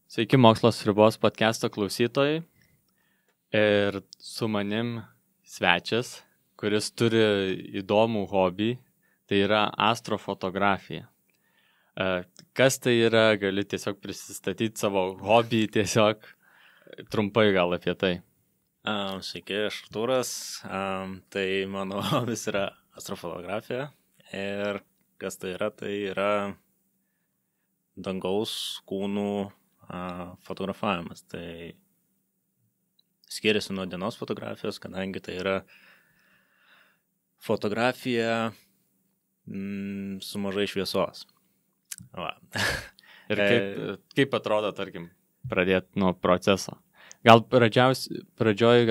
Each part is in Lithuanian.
Sveiki, Mokslas ribos podcast'o klausytojai. Ir su manim svečias, kuris turi įdomų hobį, tai yra astrofotografija. Kas tai yra, gali tiesiog prisistatyti savo hobį, tiesiog trumpai gal apie tai. Sveiki, aš Artūras. Tai mano hobis yra astrofotografija. Ir kas tai yra dangaus kūnų fotografavimas. Tai skiriasi nuo dienos fotografijos, kadangi tai yra fotografija su mažai šviesos. Va. Ir kaip atrodo, tarkim, pradėti nuo proceso? Gal pradžioj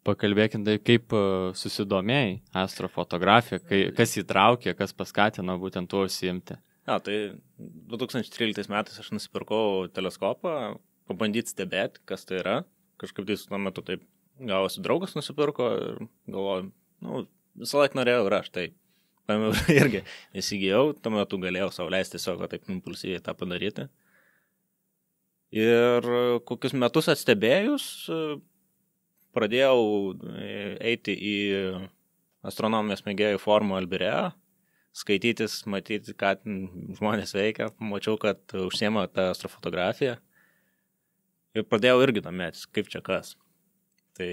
pakalbėkim tai, kaip susidomėjai astrofotografija, kas įtraukė, kas paskatino būtent tuo užsiimti? Tai 2013 metais aš nusipirkau teleskopą, pabandyti stebėti, kas tai yra. Kažkaip tai tuo metu taip gavosi, draugas nusipirko ir galvoju, visą laiką norėjau ir aš tai irgi įsigijau, tuo metu galėjau sau leisti tiesiog taip impulsyviai tą padaryti. Ir kokius metus atstebėjus, pradėjau eiti į astronomijos mėgėjų forumą Albireo, skaitytis, matyti, ką žmonės veikia, mačiau, kad užsiema tą astrofotografiją ir pradėjau irgi domėtis, kaip čia kas. Tai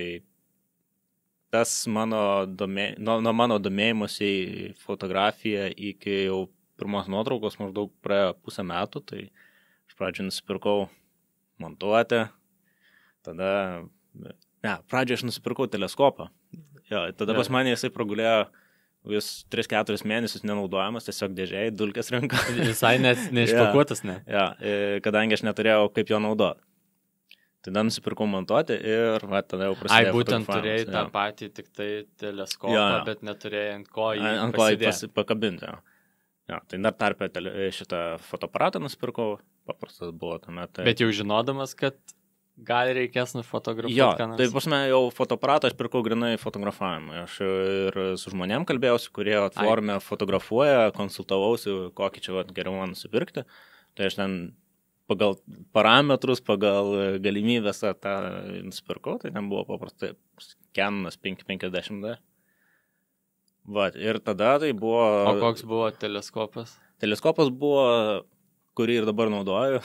tas nuo mano domėjimuose į fotografiją iki jau pirmos nuotraukos maždaug praėjo pusę metų, tai iš pradžių nusipirkau montuotę, pradžioje aš nusipirkau teleskopą. Tada pas mane jisai pragulėjo vis 3-4 mėnesius nenaudojamas, tiesiog dėžėjai, dulkės rinka. Visai neišpakuotas, ne? Kadangi aš neturėjau kaip jo naudoti. Tada nusipirkau montuoti ir tada jau prasidėjo fotografavimas. Būtent turėjai tą patį tik tai teleskopą, bet neturėjai ant ko jį pakabinti. Tai dar tarpę šitą fotoaparatą nusipirkau, paprastas buvo tame. Bet jau žinodamas, kad gal reikės nufotografuoti. Tai pas mane jau fotoaparatą aš pirkau grinai fotografavimui. Aš ir su žmonėm kalbėjausi, kurie forume fotografuoja, konsultavausi, kokį čia geriau man nusipirkti. Tai aš ten pagal parametrus, pagal galimybės tą nusipirkau, tai ten buvo paprastai Canonas 550D. Ir tada tai buvo... O koks buvo teleskopas? Teleskopas buvo, kurį ir dabar naudoju.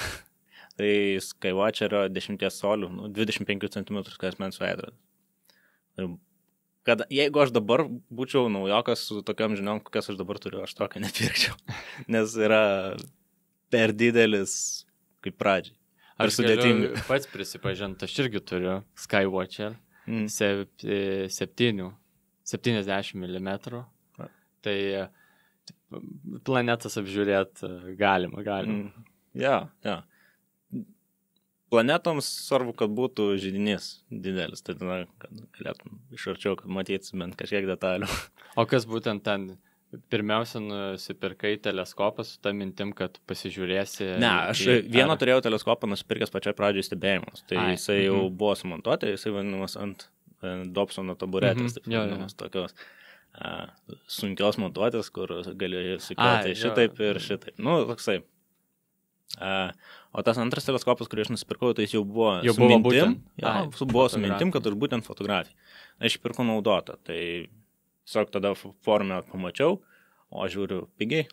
Tai Skywatcherio 10 colių, 25 cm skersmens veidrodis. Jeigu aš dabar būčiau naujokas su tokiam žiniom, kokias aš dabar turiu, aš tokio nepirkčiau. Nes yra per didelis kaip pradžiai. Aš galiu pats prisipažinti, aš irgi turiu Skywatcher 70 mm. Tai planetas apžiūrėti galima. Planetoms svarbu, kad būtų židinys didelis, tai tada galėtum iš arčiau, kad matytis bent kažkiek detalių. O kas būtent ten pirmiausia nusipirkai teleskopą su ta mintim, kad pasižiūrėsi? Ne, aš vieną turėjau teleskopą nusipirkęs pačiai pradžiai stebėjimus, tai jisai jau buvo sumontuoti, jisai vadinamas ant Dobsono taburetės, taip vadinamas tokios sunkios montuotės, kur gali sukelti šitaip ir šitaip. Toksai. O tas antras teleskopas, kurį aš nusipirkau, tai jis jau buvo su mintim. Buvo su mintim, kad aš būtent fotografija. Aš pirkau naudotą, tai tiesiog tada forume pamačiau, o žiūriu pigiai,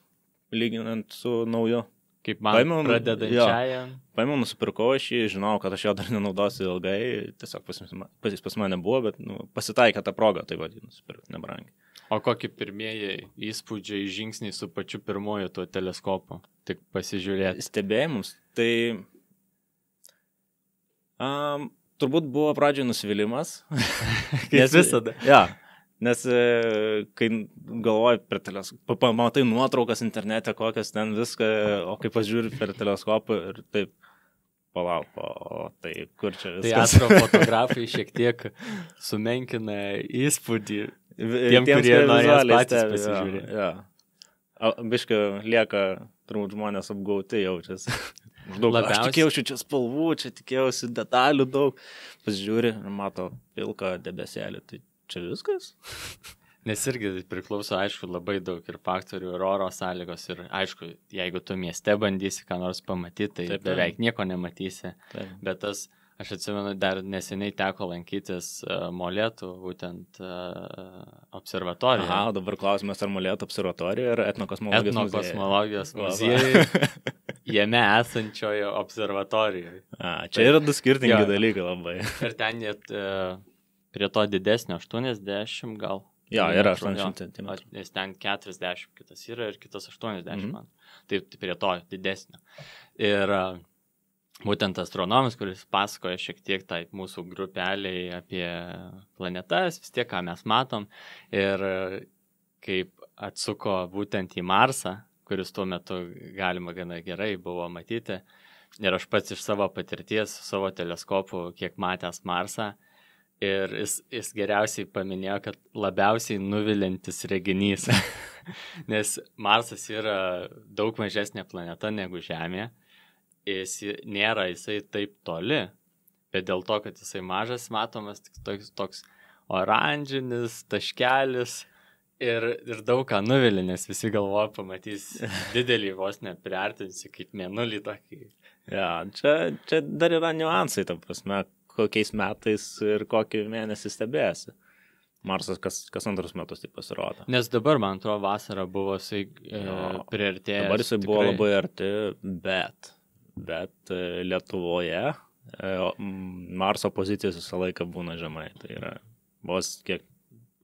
lyginant su nauju. Kaip man pradedančiajam. Paėmiau, nusipirkau aš jį, žinau, kad aš jo dar nenaudosiu ilgai, tiesiog pas mane buvo, bet pasitaikė tą progą, tai nusipirkau nebrangiai. O kokie pirmieji įspūdžiai, žingsniai su pačiu pirmoju tuo teleskopu? Tik pasižiūrėti. Stebėjimus. Tai turbūt buvo pradžioje nusivylimas. Kaip visada. Nes kai galvoji per teleskopą, pamatai nuotraukas internete, kokias ten viską, o kai pažiūri per teleskopą ir taip, palauk, tai kur čia viskas. Tai astrofotografai šiek tiek sumenkina įspūdį tiem, kurie norės patys pasižiūrėti. Biškai lieka, turbūt žmonės apgauti jaučiasi. Aš tikėjausi čia spalvų, čia tikėjausi detalių daug. Pasižiūri ir mato pilką debeselį, tai čia viskas? Nes irgi priklauso, aišku, labai daug ir faktorių, ir oro sąlygos, ir aišku, jeigu tu mieste bandysi ką nors pamatyti, tai Taip, beveik nieko nematysi. Taip. Bet aš atsimenu, dar neseniai teko lankytis Molėtų, būtent observatorijoje. Aha, dabar klausimas, ar Molėtų observatorijoje ar Etnokosmologijos muziejuje, jame esančioje observatorijoje. Čia yra du skirtingi dalykai labai. Ir ten net prie to didesnio 80 gal. Jo, yra 80 cm. Nes ten 40 kitas yra ir kitas 80 man. Tai prie to didesnio. Ir būtent astronomas, kuris pasakoja šiek tiek tai mūsų grupeliai apie planetas, vis tiek ką mes matom. Ir kaip atsuko būtent į Marsą, kuris tuo metu galima gana gerai buvo matyti. Ir aš pats iš savo patirties, savo teleskopu, kiek matęs Marsą, ir jis geriausiai paminėjo, kad labiausiai nuvilintis reginys, nes Marsas yra daug mažesnė planeta negu Žemė, jisai taip toli, bet dėl to, kad jisai mažas, matomas tik toks oranžinis taškelis ir daug ką nuvilė, nes visi galvoja pamatys didelį vos nepriartinsi kaip mėnulį tokį. Ja, čia dar yra niuansai, ta prasme, kokiais metais ir kokį mėnesį stebėsi. Marsas kas antrus metus taip pasirodo. Nes dabar, man atrodo, vasara buvo priartėjęs. Dabar jisai buvo labai arti, bet Lietuvoje Marso pozicijos visą laiką būna žemai. Tai yra vos kiek,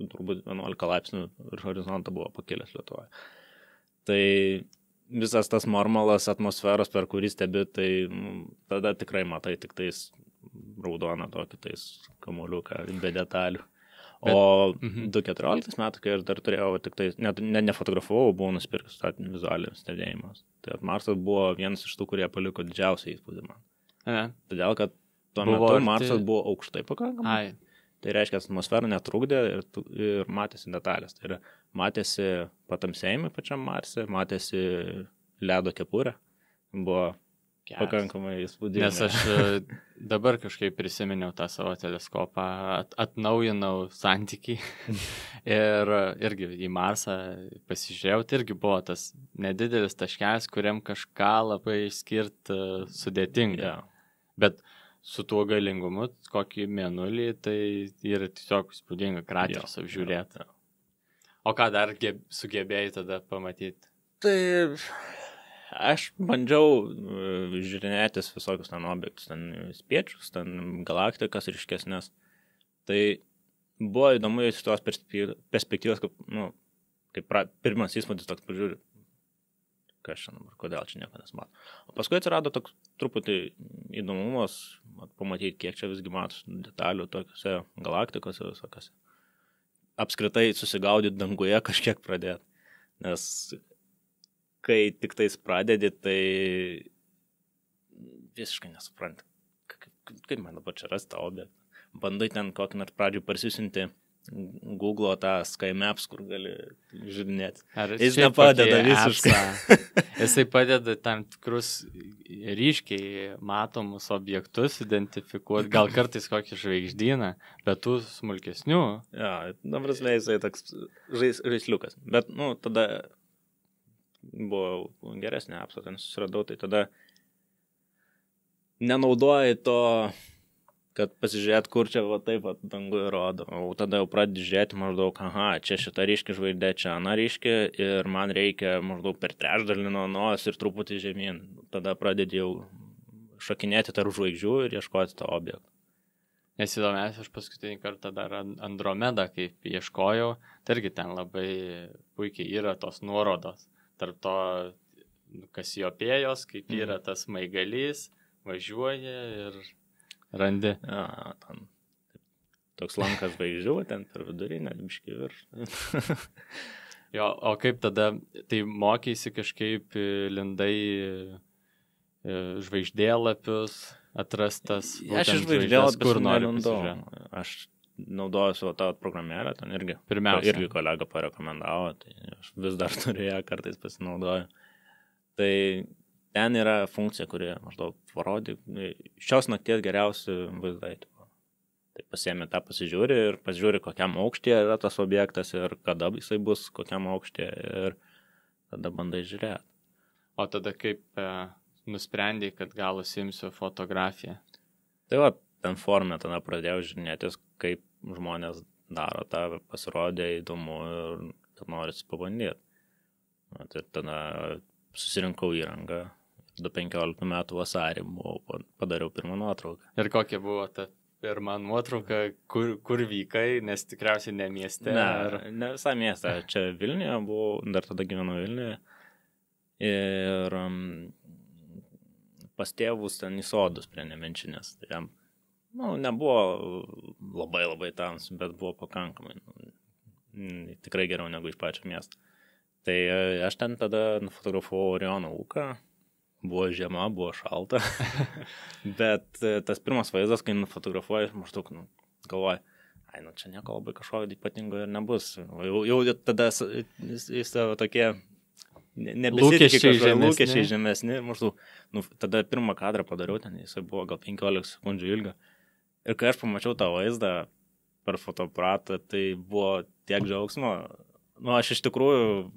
turbūt 11 laipsnių ir horizontą buvo pakilęs Lietuvoje. Tai visas tas marmalas atmosferos, per kurį stebi, tai tada tikrai matai tik tais raudoną tokį tais kamuoliuką be detalių. O 2014 metų, kai aš dar turėjau, tik tai, nefotografavau, buvau nusipirkęs vizualinis stebėjimas. Tai Marsas buvo vienas iš tų, kurie paliko didžiausią įspūdį man. Todėl, kad tuo metu Marsas buvo aukštai pakankamai. Tai reiškia, atmosfera netrukdė ir matėsi detalės. Tai yra, matėsi patamsėjimai pačiam Marse, matėsi ledo kepurė. Buvo pakankamai įspūdinga. Nes aš dabar kažkaip prisiminiau tą savo teleskopą, atnaujinau santykį ir irgi į Marsą pasižiūrėjau, tai irgi buvo tas nedidelis taškelis, kuriam kažką labai išskirti sudėtinga. Bet su tuo galingumu, kokį mėnulį, tai yra tiesiog įspūdinga krateris apžiūrėti. O ką dar sugebėjai tada pamatyti? Tai aš bandžiau žiūrinėtis visokius ten objektus, ten spiečius, ten galaktikas ryškesnės. Tai buvo įdomu iš tos perspektyvos, kaip pirmas įspūdis toks pažiūri, kas čia dabar, kodėl čia nieko nesmato. O paskui atsirado toks truputį įdomumas pamatyti, kiek čia visgi matos detalių tokiuose galaktikose visokiose. Apskritai susigaudyti danguje kažkiek pradėti, nes kai tik tais pradedi, tai visiškai nesupranti, kaip man dabar čia rasti tą objektą. Bandai ten kokį nors pradžių parsisinti Google tą Sky Maps, kur gali žiūrinėti. Jis nepadeda visiškai. Jisai padeda tam tikrus ryškiai matomus objektus identifikuoti, gal kartais kokį žvaigždyną, bet tų smulkesnių. Ja, dabar jisai toks žaisliukas. Bet, tada buvo geresnė apsa, ten susiradau, tai tada nenaudoji to, kad pasižiūrėt, kur čia taip dangui rodo. O tada jau pradedi žiūrėti maždaug, čia šita ryški žvaigždė, čia ana ryški ir man reikia maždaug per trečdalį nuo nos ir truputį žemyn. Tada pradedi jau šakinėti tarp žvaigždžių ir ieškoti to objekto. Nes įdomiausia, aš paskutinį kartą dar Andromedą, kaip ieškojau, tai irgi ten labai puikiai yra tos nuorodos. Tarp to Kasiopėjos, kaip yra tas smaigalys, važiuoja ir randi. Ja, ten toks lankas žvaigždžių, ten per vidurinę, biškį virš. Jo, o kaip tada, tai mokeisi kažkaip lindai žvaigždėlapius atrastas? Aš žvaigždėlapius nelindau. Aš naudoju savo tą programėlę, ten irgi kolega parekomendavo, tai aš vis dar turiu ją, kartais pasinaudoju. Tai ten yra funkcija, kuri maždaug parodė šios nakties geriausi vaizdai. Tai pasiemi tą, pasižiūri ir pasižiūri, kokiam aukštyje yra tas objektas ir kada jisai bus, kokiam aukštyje ir tada bandai žiūrėti. O tada kaip nusprendai, kad gal užsiimsiu fotografiją? Tai va, ten forume tada pradėjau žiūrėtis, kaip žmonės daro tą, pasirodė įdomu ir kad norisi pabandyti. Tai tada susirinkau įrangą, 15 metų vasarį padariau pirmą nuotrauką. Ir kokia buvo ta pirma nuotrauka, kur vykai, nes tikriausiai ne mieste? Ne visai mieste, čia Vilniuje buvau, dar tada gyvenau Vilniuje. Ir pas tėvus ten į sodus prie Nemenčinės. Tai jam, nebuvo labai tams, bet buvo pakankamai. Tikrai geriau negu iš pačio miesto. Tai aš ten tada nufotografavau Oriono ūką. Buvo žiema, buvo šalta. Bet tas pirmas vaizdas, kai nufotografuoju, maždaug galvoju, čia nieko labai kažko ypatingo ir nebus. Jau tada jis tokie lūkesčiai žemesni. Maždaug, tada pirmą kadrą padariau, ten jisai buvo gal 15 sekundžių ilgio. Ir kai aš pamačiau tą vaizdą per fotoaparatą, tai buvo tiek džiaugsmo. Aš iš tikrųjų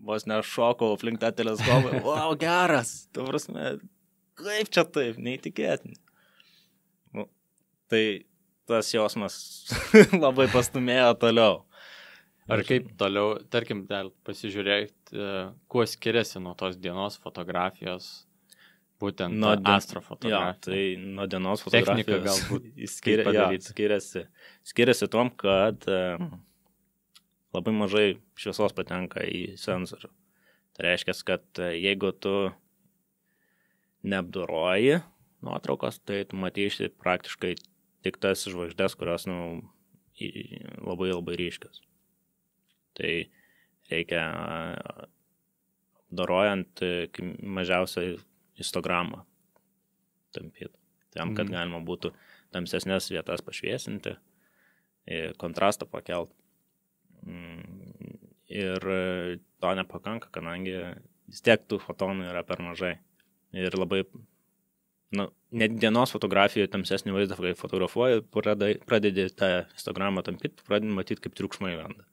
vos nešokau aplink tą teleskopą. Wow, geras! Tu prasme, kaip čia taip, neįtikėtinai. Tai tas jausmas labai pastumėjo toliau. Ar kaip toliau, tarkim, dar pasižiūrėti, kuo skiriasi nuo tos dienos fotografijos, būtent astrofotografija. Tai nuo dienos fotografijos technika galbūt skiriasi tom, kad labai mažai šviesos patenka į sensorių. Tai reiškia, kad jeigu tu neapdoroji nuotraukos, tai tu matysi praktiškai tik tas žvaigždės, kurios labai ryškios. Tai reikia apdorojant mažiausiai histogramą tampyti. Tam, kad galima būtų tamsesnės vietas pašviesinti, kontrastą pakelt. Ir to nepakanka, kadangi vis tiek tų fotonų yra per mažai. Ir labai, net dienos fotografijoje tamsesnį vaizdą, kai fotografuoji, pradedi tą histogramą tampyti, pradedi matyti, kaip triukšmai lenda.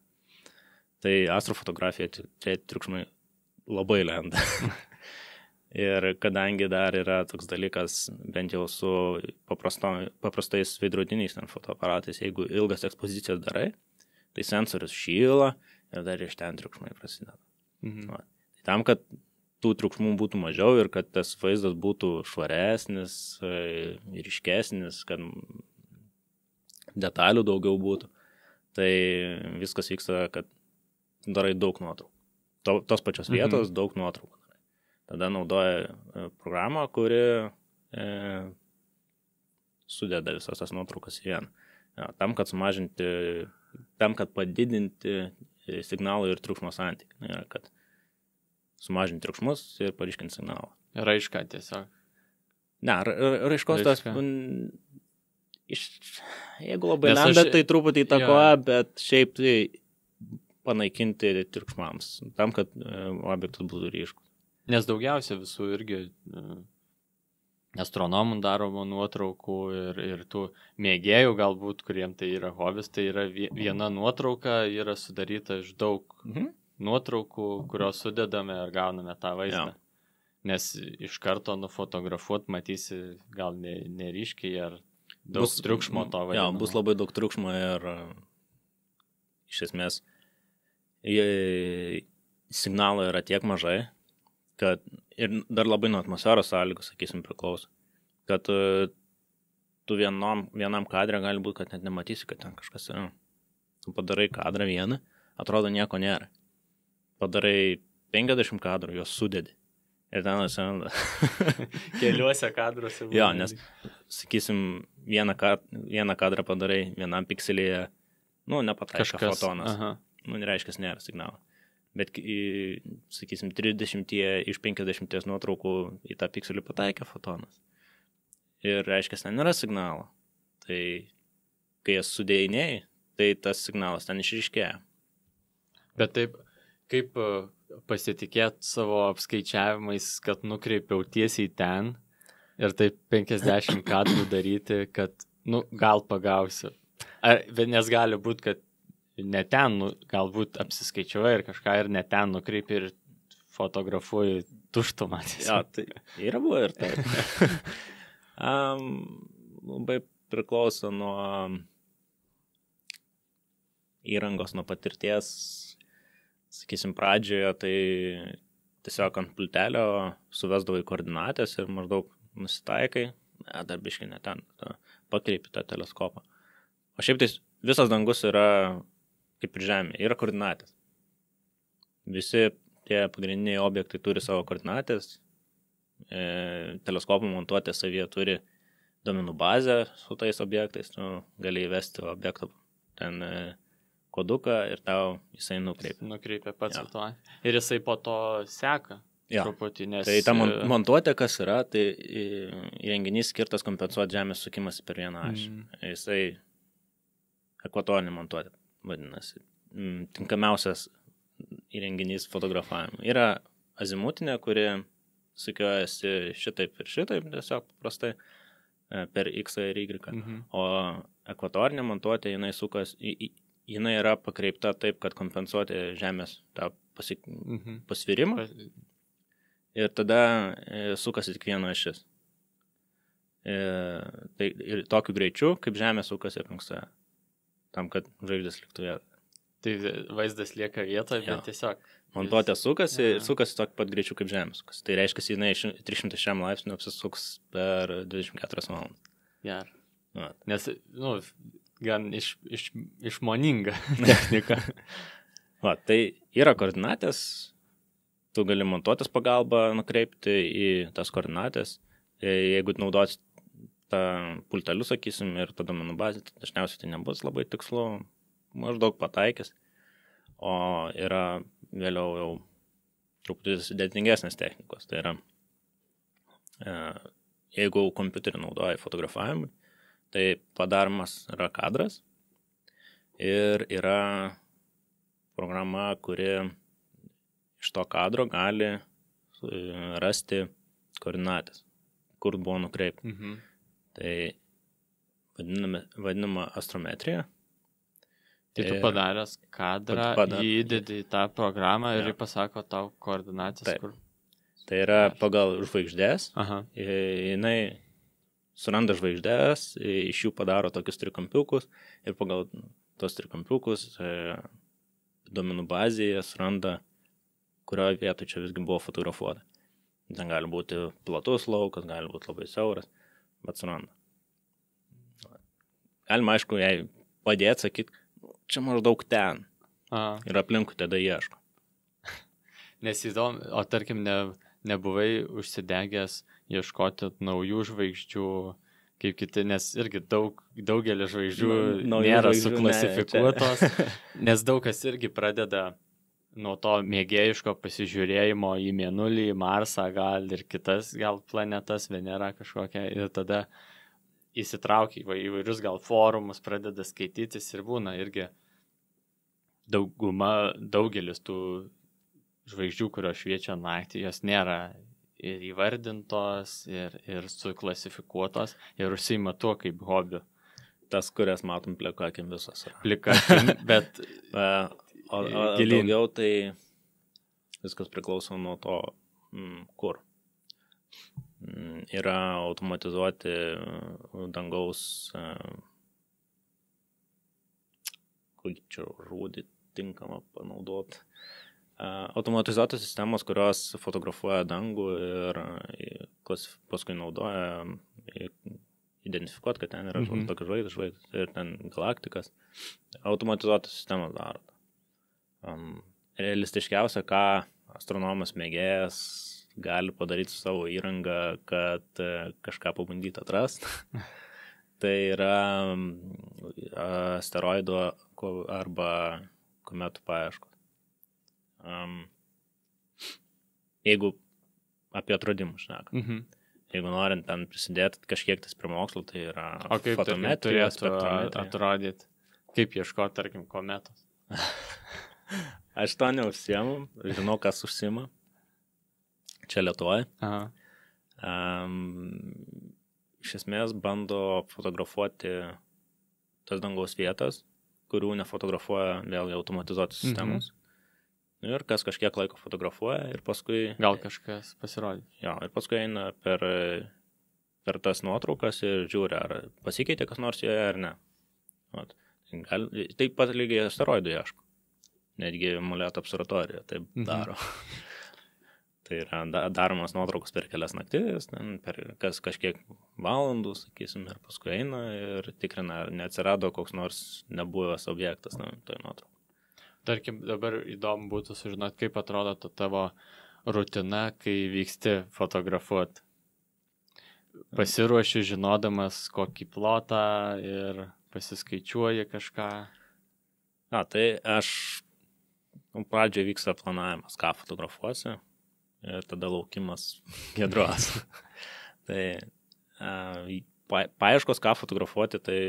Tai astrofotografija triukšmai labai lenda. Ir kadangi dar yra toks dalykas, bent jau su paprastais veidrodiniais fotoaparatais, jeigu ilgas ekspozicijas darai, tai sensorius šyla ir dar iš ten triukšmai prasideda. Tai tam, kad tų triukšmų būtų mažiau ir kad tas vaizdas būtų švaresnis, ryškesnis, kad detalių daugiau būtų, tai viskas vyksta, kad darai daug nuotraukų. Tos pačios vietos daug nuotraukų. Tada naudoja programą, kuri sudeda visas tas nuotraukas į vieną. Tam, kad padidinti signalą ir triukšmo santykį. Kad sumažinti triukšmus ir paryškinti signalą. Raišką tiesiog. Ne, raiškos tas, jeigu labai lenda, tai truputį įtakoja, bet šiaip tai panaikinti triukšmams, tam, kad objektas būtų ryškus. Nes daugiausia visų irgi astronomų daromų nuotraukų ir tų mėgėjų galbūt, kuriem tai yra hobis, tai yra viena nuotrauka, yra sudaryta iš daug nuotraukų, kurios sudedame ir gauname tą vaizdą. Nes iš karto nufotografuot matysi gal neryškiai ar daug triukšmo to vadinamo. Bus labai daug triukšmo ir iš esmės signalo yra tiek mažai, kad ir dar labai nuo atmosferos sąlygų, sakysim, priklauso, kad tu vienam kadre gali būti, kad net nematysi, kad ten kažkas yra. Tu padarai kadrą vieną, atrodo nieko nėra. Padarai 50 kadrų, juos sudedi. Ir ten atsiranda. Keliuose kadruose. Jo, nes, sakysim, vieną kadrą padarai vienam pikselėje, nepataiko fotonas. Nereiškia, nėra signalo. Bet, sakysim, 30 iš 50 nuotraukų į tą pikselį pataikė fotonas. Ir reiškia, ten nėra signalo. Tai, kai jas sudėjinėjai, tai tas signalas ten išryškėja. Bet taip, kaip pasitikėt savo apskaičiavimais, kad nukreipiau tiesiai ten ir taip 50 kadrų daryti, kad Nu, gal pagausiu. Nes gali būti, kad ne ten, galbūt apsiskaičiuoja ir kažką ir ne ten nukreipi ir fotografuoji tuštumą. Ja, tai yra buvo ir taip. Labai priklauso nuo įrangos, nuo patirties. Sakysim, pradžioje tai tiesiog ant pultelio suvesdavai koordinatės ir maždaug nusitaikai, dar biškai ne ten, pakreipi tą teleskopą. O šiaip tai visas dangus yra kaip ir Žemė, yra koordinatės. Visi tie pagrindiniai objektai turi savo koordinatės, teleskopų montuotė savyje turi duomenų bazę su tais objektais, tu gali įvesti objektą ten koduką ir tau jisai nukreipia. Nukreipia pats to. Ir jisai po to seka. Ja. Truputį, nes... Tai ta montuotė, kas yra, tai įrenginys skirtas kompensuoti Žemės sukimas per vieną ašį. Jisai ekvatorinė montuotė, vadinasi. Tinkamiausias įrenginys fotografavimui. Yra azimutinė, kuri sukiojasi šitaip ir šitaip, tiesiog paprastai per X ir Y. O ekvatorinė montuotė, jinai sukas, jinai yra pakreipta taip, kad kompensuoti Žemės tą pasvirimą. Ir tada sukasi tik viena ašis. Tai ir tokiu greičiu, kaip Žemė sukasi aplink save. Tam, kad žvaigždės liktų vietoje. Tai vaizdas lieka vietoje, bet tiesiog... Montuotė sukasi ir sukasi tokiu pat greičiu, kaip Žemė sukasi. Tai reiškia, jinai 306 laipsnių apsisuks per 24 valandas. Gerai. Nes, gan išmoninga technika. Tai yra koordinatės. Tu gali montuotės pagalbą nukreipti į tas koordinatės. Jeigu naudosi tą pultelių, sakysim, ir tada duomenų bazė, tai dažniausiai tai nebus labai tikslu, maždaug pataikės. O yra vėliau jau truputį sudėtingesnės technikos. Tai yra, jeigu kompiuterį naudoja fotografavimui, tai padaromas yra kadras ir yra programa, kuri iš to kadro gali rasti koordinatės, kur buvo nukreipta. Tai vadinama astrometrija. Tai tu padaręs kadrą, jį įdedi į tą programą ir jį pasako tau koordinatės. Taip. Kur... Tai yra pagal žvaigždės. Jinai suranda žvaigždės, iš jų padaro tokius trikampiukus ir pagal tos trikampiukus duomenų bazėje suranda, kurioje vietoje čia visgi buvo fotografuota. Ten gali būti platus laukas, gali būti labai siauras, bet suranda. Galima, aišku, jai padėti, sakyti, čia maždaug ten. Ir aplinkui tada ieško. Nes įdomu, o tarkim, nebuvai užsidegęs ieškoti naujų žvaigždžių, kaip kiti, nes irgi daugelį žvaigždžių nėra suklasifikuotos, nes daug kas irgi pradeda nuo to mėgėjiško pasižiūrėjimo į Mėnulį, į Marsą, gal ir kitas, gal planetas, Venera kažkokia, ir tada įsitraukia į įvairius gal forumus, pradeda skaitytis ir būna irgi daugelis tų žvaigždžių, kurios šviečia naktį, jos nėra ir įvardintos, ir suklasifikuotos, ir užsiima tuo kaip hobiu. Tas, kurias matom plikakim visos. Plikakim, bet... O daugiau tai viskas priklauso nuo to, kur. Yra automatizuoti dangaus, kokį čia žodį tinkamą panaudoti. Automatizuotos sistemos, kurios fotografuoja dangų ir paskui naudoja identifikuoti, kad ten yra tokia žvaigždės ir ten galaktikas. Automatizuotos sistemos daro. Realistiškiausia, ką astronomas mėgėjas gali padaryti su savo įrangą, kad kažką pabandyti atrasti. Tai yra asteroidų arba kometų paieškos. Jeigu apie atradimus šneka. Jeigu norint ten prisidėti kažkiek tais prie mokslo, tai yra fotometrija, spektrometrija. Atrodyti, kaip ieškoti, tarkim, kometos. Aš to neužsiemu, žinau, kas užsiima. Čia Lietuvoje. iš esmės bando fotografuoti tas dangaus vietas, kurių nefotografuoja vėlgi automatizuotos sistemos. Ir kas kažkiek laiko fotografuoja ir paskui... Gal kažkas pasirodė. Jo, ir paskui eina per tas nuotraukas ir žiūri, ar pasikeitė kas nors joje ar ne. Taip pat lygiai asteroidų ieško. Netgi Moleto observatorija taip daro. Tai yra daromas nuotraukos per kelias naktis, per kažkiek valandų, sakysim, ir paskui eina ir tikrina, ar neatsirado koks nors nebuvęs objektas toj nuotraukoj. Tarkim, dabar įdomu būtų sužinoti, kaip atrodo ta tavo rutina, kai vyksti fotografuoti. Pasiruoši žinodamas kokį plotą ir pasiskaičiuoji kažką. Tai aš pradžioje vyksta planavimas, ką fotografuosi, ir tada laukimas Giedros. Tai paieškos, ką fotografuoti, tai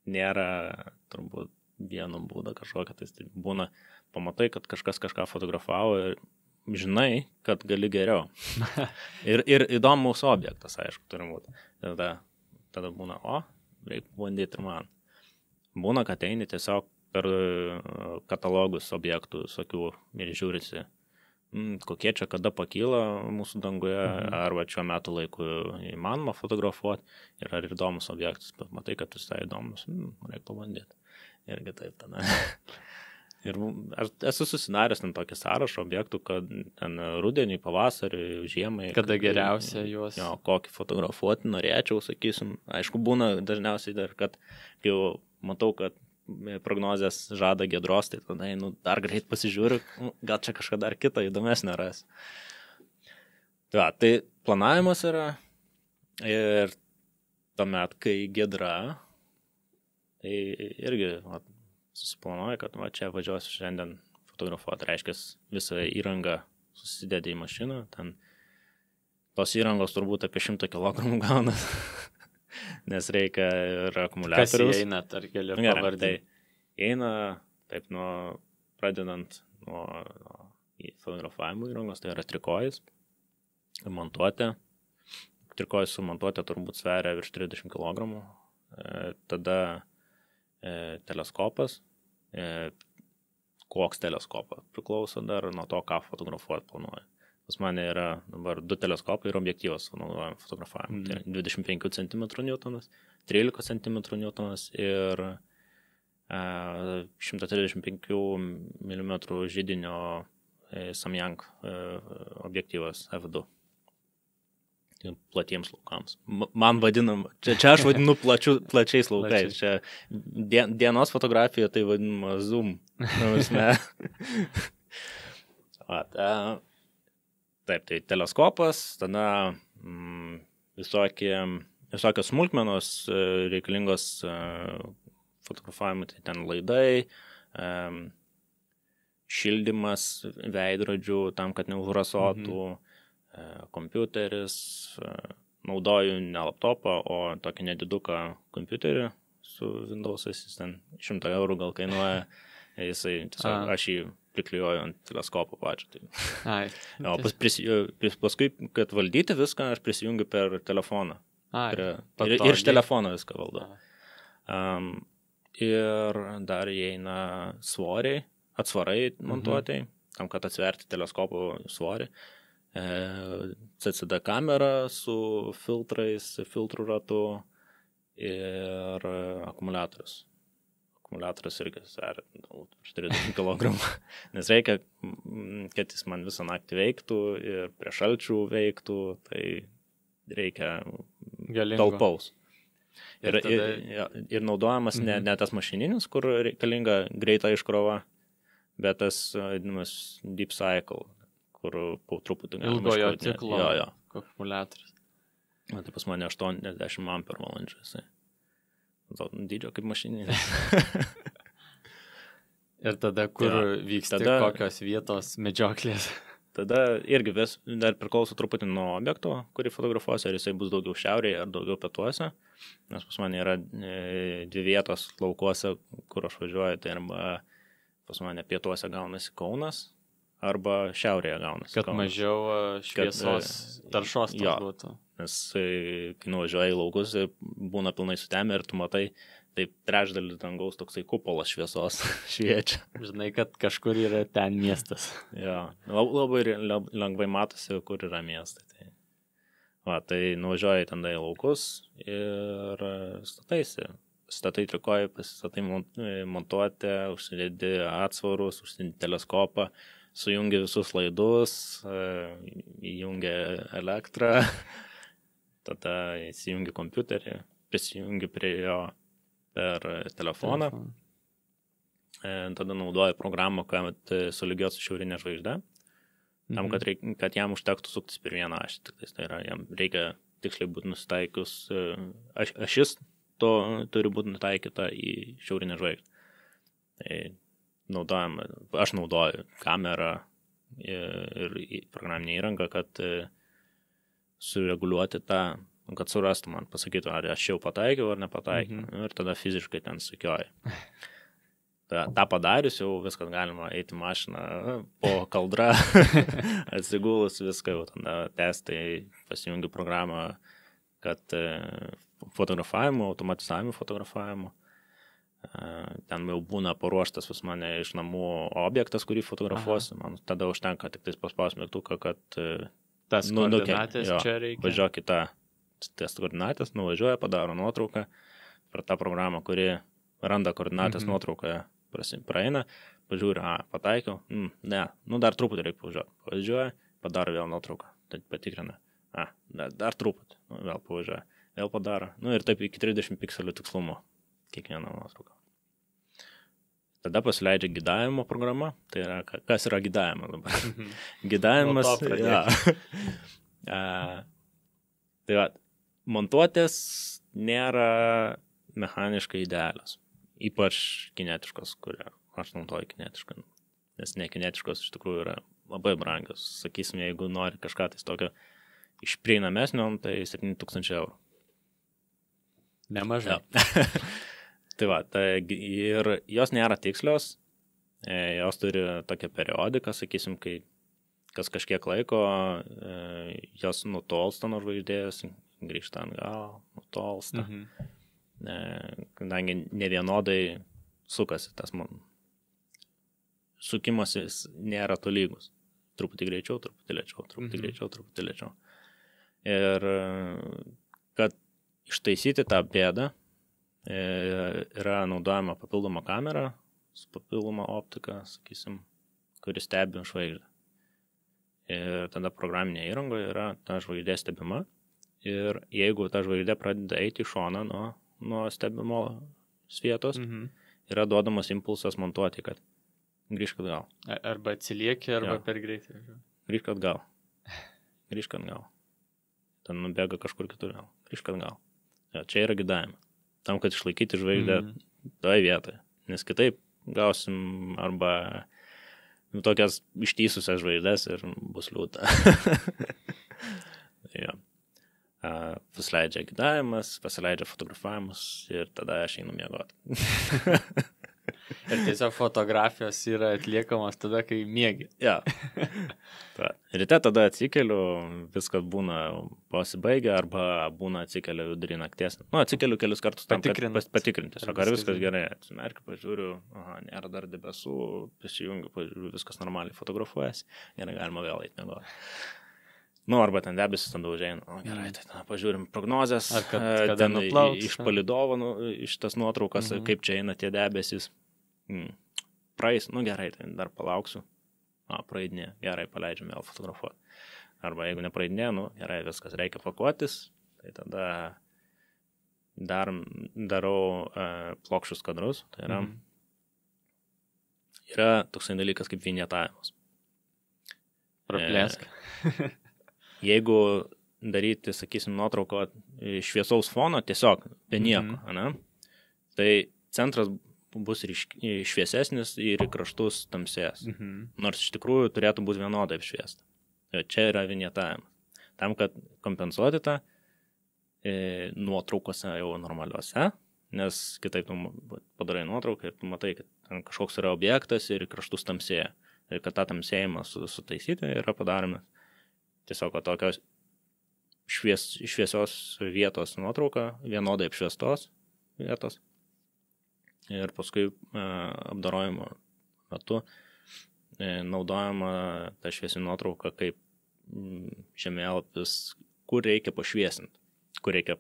nėra turbūt vieno būdo kažkokia, tai būna, pamatai, kad kažkas kažką fotografavo ir žinai, kad gali geriau. ir įdomus objektas, aišku, turi būti. Tada būna, reikia bandyti ir man. Būna, kad eini tiesiog per katalogus objektų visokių ir žiūrisi, kokie čia kada pakyla mūsų danguje, arba šiuo metu laiku įmanoma fotografuoti ir ar įdomus objektas, bet matai, kad visai įdomus, reikia pabandyti. Irgi taip tada. Ir aš esu susidaręs ten tokį sąrašą objektų, kad ten rudenį, pavasarį, žiemai. Kada geriausia juos. Jo, kokį fotografuoti norėčiau, sakysim. Aišku, būna dažniausiai dar, kad kai jau matau, kad prognozės žada Giedros, tai tada dar greit pasižiūriu, gal čia kažką dar kitą įdomesnę ras. Tai planavimas yra ir tuomet, kai Giedra, tai irgi susiplanuoja, kad čia važiuosiu šiandien fotografuoti, reiškia visą įrangą susidėdė į mašiną, ten tos įrangos turbūt apie 100 kg gaunas, nes reikia ir akumuliatorius. Kas įeina, ar gali pavardai? Tai eina, taip, pradedant nuo fotografavimo įrangos, tai yra trikojus, montuotė. Trikojus su montuotė turbūt sveria virš 30 kg. Tada teleskopas. Koks teleskopas priklauso dar nuo to, ką fotografuoti planuoja. Pas mane yra dabar 2 teleskopai ir objektyvas naudojam fotografavimui. Tai 25 cm Newtonas, 13 cm Newtonas ir 135 mm židinio Samyang objektyvas F2. Platiems laukams. Man vadinam, čia aš vadinu plačiais laukais. Čia dienos fotografija tai vadinama zoom. Taip, tai teleskopas, tada visokios smulkmenos reikalingos fotografavimui, tai ten laidai, šildymas veidrodžių tam, kad neužrasotų, kompiuteris, naudoju ne laptopą, o tokį nediduką kompiuterį su Windows'ais, jis ten 100 eurų gal kainuoja, aš jį priklijuoju ant teleskopo pačią. Paskui, kad valdyti viską, aš prisijungiu per telefoną. Ir iš telefono viską valdau. Ir dar įeina svoriai, atsvarai montuotai, tam, kad atsverti teleskopo svorį. CCD kamera su filtrais, filtrų ratu ir akumuliatorius. Akumuliatorius irgi sveria 30 kg, nes reikia, kad jis man visą naktį veiktų ir prie šalčių veiktų, tai reikia talpaus. Ir naudojamas ne tas mašininis, kur reikalinga greita iškrova, bet tas vadinamas deep cycle, kur po truputį ilgojo ciklo akumuliatorius. Tai pas mane 80 ampervalandžių jisai. Dydžio kaip mašininis. Ir tada, kur vyksta kokios vietos medžioklės? Tada irgi dar priklauso truputį nuo objekto, kurį fotografuosiu, ar jisai bus daugiau šiaurėje ar daugiau pietuose. Nes pas mane yra 2 vietos laukuose, kur aš važiuoju, tai arba pas mane pietuose gaunasi Kaunas, arba šiaurėje gaunasi. Kad mažiau šviesos taršos būtų. Nes kai nuvažiuoji į laukus, būna pilnai sutemę ir tu matai, taip trečdalis dangaus toksai kupolas šviesos šviečia. Žinai, kad kažkur yra ten miestas. Jo, labai lengvai matosi, kur yra miestai. Tai nuvažiuoji ten į laukus ir statai trikojai, pasistatai montuoti, užsidėdi atsvarus, užsidėdi teleskopą, sujungi visus laidus, įjungi elektrą, tada įsijungi kompiuterį, prisijungi prie jo per telefoną, tada naudoji programą, kad sulygiuot su šiaurinė žvaigždė, tam, kad jam užtektų suktis per vieną ašį. Tai yra, jam reikia tiksliai būti nusitaikius, ašis to turi būti nutaikyta į šiaurinę žvaigždę. Tai aš naudoju kamerą ir programinę įrangą, kad sureguliuoti tą, kad surastų man, pasakytų, ar aš jau pataikiau ar nepataikiau. Ir tada fiziškai ten sukioju. Ta padarius jau viskas galima eiti mašiną po kaldra, atsigulus viską, jau tada testai, pasijungi programą, kad fotografavimo, automatizavimo fotografavimo. Ten jau būna paruoštas pas mane iš namų objektas, kurį fotografuosiu. Man tada užtenka tik tais paspaus mygtuką, kad tas koordinatės čia reikia. Važiuok į tas koordinatės, nuvažiuoja, padaro nuotrauką per tą programą, kuri randa koordinatės nuotraukoje, praeina, pažiūri, pataikiau, ne, dar truputį reikia pavažiuoti. Pavažiuoja, padaro vėl nuotrauką, tai patikrina, dar truputį, vėl pavažiuoja, vėl padaro, ir taip iki 30 pikselių tikslumo kiekvieną nuotrauką. Tada pasileidžia gidavimo programa, tai yra, kas yra gidavimas dabar? Gidavimas, tai va, montuotės nėra mechaniškai idealios, ypač kinetiškos, kurie aš naudoju kinetišką, nes nekinetiškos iš tikrųjų yra labai brangios. Sakysim, jeigu nori kažką tai tokio iš prieinamesnio, tai 7000 eurų. Nemažai. Tai va, ir jos nėra tikslios, jos turi tokią periodiką, sakysim, kai kas kažkiek laiko, jos nutolsta nuo žvaigždės, grįžta atgal, nutolsta. Kadangi nevienodai sukasi tas sukimasis nėra tolygus. Truputį greičiau, truputį lėčiau, truputį greičiau, truputį lėčiau. Ir kad ištaisyti tą bėdą, yra naudojama papildoma kamera su papildoma optika, sakysim, kuris stebi žvaigždę. Ir tada programinė įrangoje yra ta žvaigždė stebima. Ir jeigu ta žvaigždė pradeda eiti į šoną nuo stebimo vietos, yra duodamas impulsas montuoti, kad grįžk atgal. Arba atsilieki, arba per greitai. Grįžk atgal. Grįžk atgal. Ten nubėga kažkur kitur. Grįžk atgal. Čia yra gidavimas. Tam, kad išlaikyti žvaigždę toje vietoje. Nes kitaip gausim arba tokias ištysusias žvaigždės ir bus liūdna. Pasileidžia gidavimas, pasileidžia fotografavimus ir tada aš einu miegoti. Ir tiesiog fotografijos yra atliekamos tada, kai miegi. Ja. Ryte tada atsikeliu, viskas būna pasibaigę arba būna atsikeliu vidurį nakties. Atsikeliu kelius kartus tam, kad patikrinti. Ar viskas gerai. Atsimerkiu, pažiūriu, nėra dar debesų, prisijungiu, pažiūriu, viskas normaliai fotografuojasi. Gerai, galima vėl eiti miegoti. Arba ten debesis tada užeina. Gerai, tai pažiūrim prognozes. Ar kad ten iš palydovo, iš tas nuotraukas, kaip čia eina tie debesis. Praeis, gerai, tai dar palauksiu. Praeidinė, gerai, paleidžiam vėl fotografuoti. Arba jeigu nepraeidinė, gerai, viskas, reikia pakuotis. Tai tada darau plokščius kadrus. Tai yra toksai dalykas kaip vinjetavimas. Praplėsk. Jeigu daryti, sakysim, nuotrauko šviesaus fono, tiesiog be nieko, tai centras bus šviesesnis ir į kraštus tamsės. Nors iš tikrųjų turėtų būti vienodai apšviesta. Čia yra vinjetavimas. Tam, kad kompensuoti tą nuotraukose jau normaliuose, nes kitaip tu padarai nuotrauką ir tu matai, kad ten kažkoks yra objektas ir į kraštus tamsėja. ir kad tą tamsėjimą sutaisyti yra padaromas tiesiog tokios šviesios vietos nuotrauka, vienodai apšviestos vietos ir paskui apdorojimo metu naudojama ta šviesi nuotrauka kaip žemėlapis, kur reikia pašviesinti, kur reikia,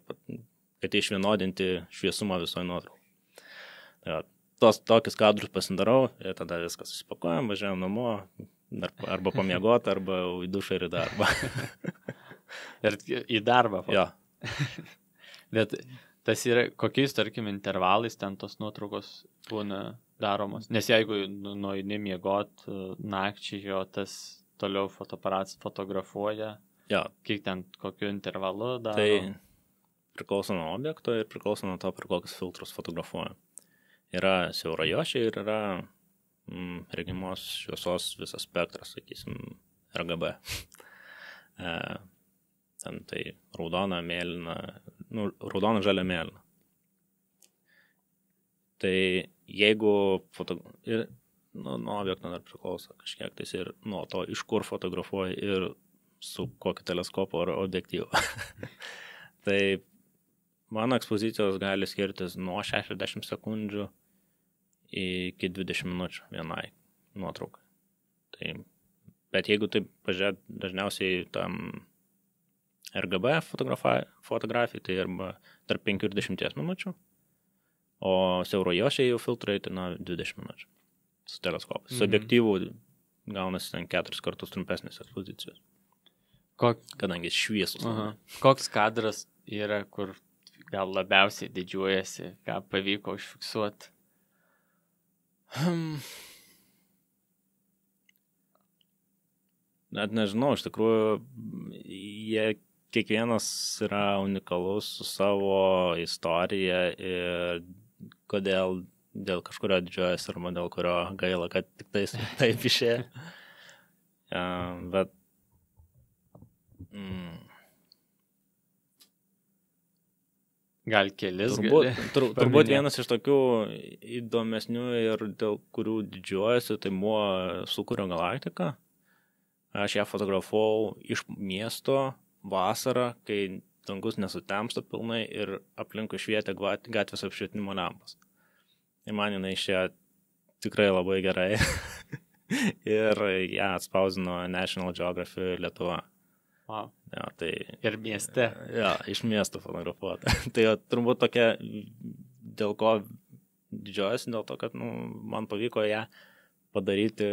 kad išvienodinti šviesumą visoje nuotraukai. Tokius kadrus pasidarau ir tada viskas susipakuojam, važiuojam namo, arba pamiegoti, arba į dušą ir į darbą. Ir į darbą. Jo. Bet tas yra, kokiais, tarkim, intervalais ten tos nuotraukos būna daromos. Nes jeigu nueini miegot nakčiai, jo tas toliau fotoaparatas fotografuoja, kiek ten kokiu intervalu daro. Tai priklauso nuo objekto ir priklauso nuo to, per kokius filtrus fotografuoja. Yra siaurajuošiai ir yra regimos šviesos visas spektras, sakysim, RGB. Ten tai raudona, mėlyna, raudona, žalia, mėlyna. Tai jeigu nuo objekto dar priklauso kažkiek tais ir nuo to, iš kur fotografuoja ir su kokiu teleskopu ar objektyvu. Tai mano ekspozicijos gali skirtis nuo 60 sekundžių iki 20 minučių vienai nuotraukai. Tai, bet jeigu taip pažiūrėt, dažniausiai tam RGB fotografijai, tai arba tarp 5 ir 10 minučių, o siaurojuošiai jau filtrai tai 20 minučių su teleskopu. Su objektyvu gaunasi ten 4 kartus trumpesnės ekspozicijos. Kadangi šviesus. Koks kadras yra, kur gal labiausiai didžiuojasi, ką pavyko užfiksuoti? Net nežinau, iš tikrųjų, jie kiekvienas yra unikalus su savo istorija ir kodėl dėl kažkurio didžiuojas arba dėl kurio gaila, kad tik taip išėjo. Bet gal kelis turbūt vienas iš tokių įdomesnių ir dėl kurių didžiuojasi, tai buvo Sūkurio galaktika. Aš ją fotografavau iš miesto vasarą, kai dangus nesutemsta pilnai ir aplinkui švietė gatvės apšvietimo lempos. Ir man jinai išėjo tikrai labai gerai. Ir ją atspausdino National Geographic Lietuva. Wow. Ja, tai, ir mieste. Ja, iš miesto fotografuota. Tai turbūt tokia, dėl ko didžiuojasi, dėl to, kad man pavyko ją padaryti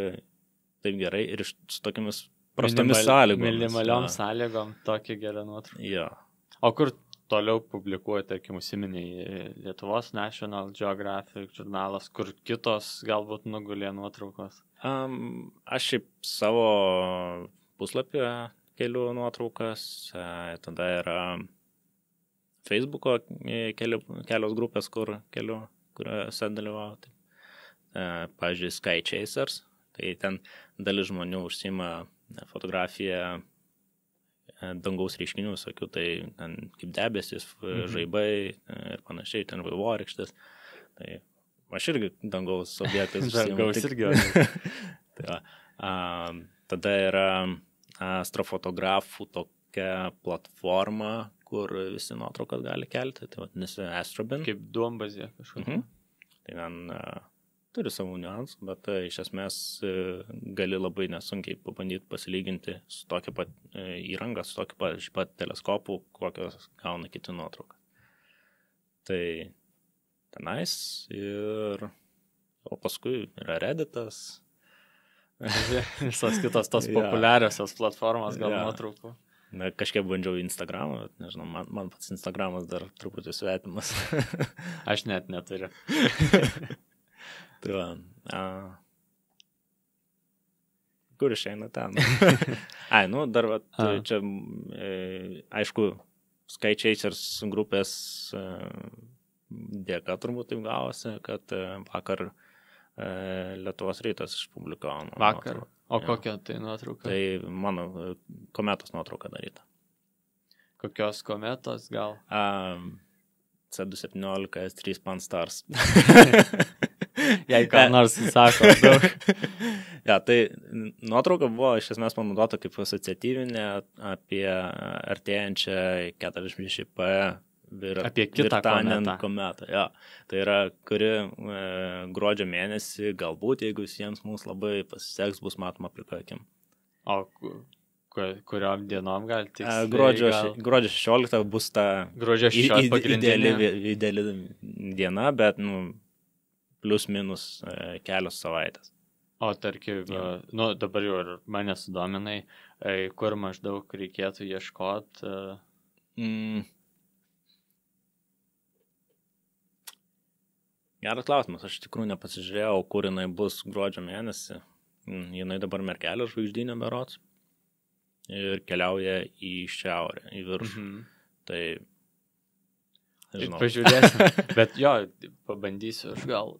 taip gerai ir su tokiamis prastomis sąlygomis. Minimaliom sąlygom tokia gera nuotrauka. Ja. O kur toliau publikuoja, tarkim, užsiminiai Lietuvos National Geographic žurnalas, kur kitos galbūt nugulė nuotraukos? Aš šiaip savo puslapyje kelių nuotraukas, tada yra Facebooko kelios grupės, kur kelių, kuriuose dalyvauti. Pavyzdžiui, Sky Chasers, tai ten dalis žmonių užsima fotografiją dangaus reiškinių, sakiau, tai ten kaip debesis, žaibai ir panašiai, ten vaivorykštės. Tai aš irgi dangaus objektais užsiimu. Dangaus irgi. Tada yra astrofotografų tokia platforma, kur visi nuotraukas gali kelti, tai vadinasi Astrobin. Kaip duombazė kažkokia. Tai ten turi savų niuansų, bet iš esmės gali labai nesunkiai pabandyti pasilyginti su tokia pat įranga, su tokia pat teleskopu, kokios gauna kiti nuotrauką. Tai tenais ir o paskui yra Redditas. Visos kitos tos populiariosios platformos gal nuotraukų. Kažkiek bandžiau Instagramą, bet nežinau, man pats Instagramas dar truputį svetimas. Aš net neturiu. Tai kur išeina ten? Dar čia, aišku, Sky Chasers grupės dėka turbūt taip gavosi, kad vakar Lietuvos rytas išpublikavo. Vakar? O kokia tai nuotrauka? Tai mano kometos nuotrauka daryta. Kokios kometos gal? C217 S3 Pan-STARRS. Jei ką nors sako daug. Ja, tai nuotrauka buvo iš esmės panaudota kaip asociatyvinė apie artėjančią 46P Apie kitą kometą. Ja. Tai yra, kuri gruodžio mėnesį, galbūt, jeigu visiems mums labai pasiseks, bus matoma plika akim. O kuriom dienom gal tiksliai? Gruodžio 16 bus ta gruodžio 16 ideali diena, bet plus minus kelios savaitės. O tarkim, dabar jau ir mane sudominai, kur maždaug reikėtų ieškoti. Geras klausimas, aš tikrųjų nepasižiūrėjau, kur jinai bus gruodžio mėnesį. Jinai dabar Merkelio žvaigždynė berods ir keliauja į šiaurę, į viršų. Tai, žinau. Pažiūrėsim, bet jo, pabandysiu aš gal,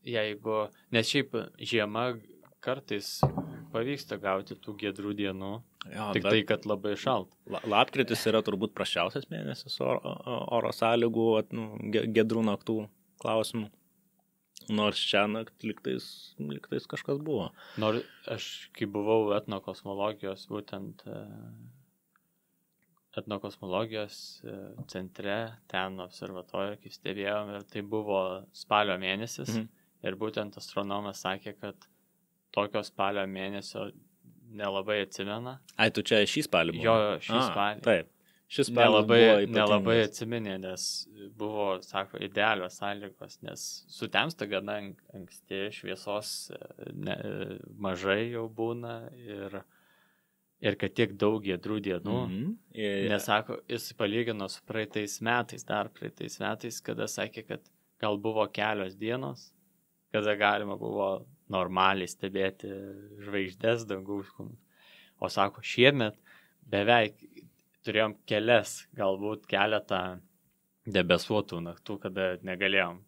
jeigu, nes šiaip žiema kartais pavyksta gauti tų giedrų dienų, jo, tik tai, kad labai šalt. Lapkritis yra turbūt prasčiausias mėnesis oro sąlygų, giedrų naktų klausimų. Nors čia naktį liktais kažkas buvo. Nors aš, kai buvau etnokosmologijos, būtent etnokosmologijos centre, ten observatorijoje, kaip stebėjom, ir tai buvo spalio mėnesis. Ir būtent astronomas sakė, kad tokio spalio mėnesio nelabai atsimena. Ai, tu čia šį spalį buvo? Jo, šį spalį. Taip. Šis spalį nelabai atsiminė, nes buvo, sako, idealios sąlygos, nes sutemsta gana anksti, šviesos mažai jau būna ir kad tiek daug giedrų dienų. Nes, sako, jis palygino su praeitais metais, kada sakė, kad gal buvo kelios dienos, kada galima buvo normaliai stebėti žvaigždės dangaus kūnus. O sako, šiemet beveik turėjom galbūt keletą debesuotų naktų, kada negalėjom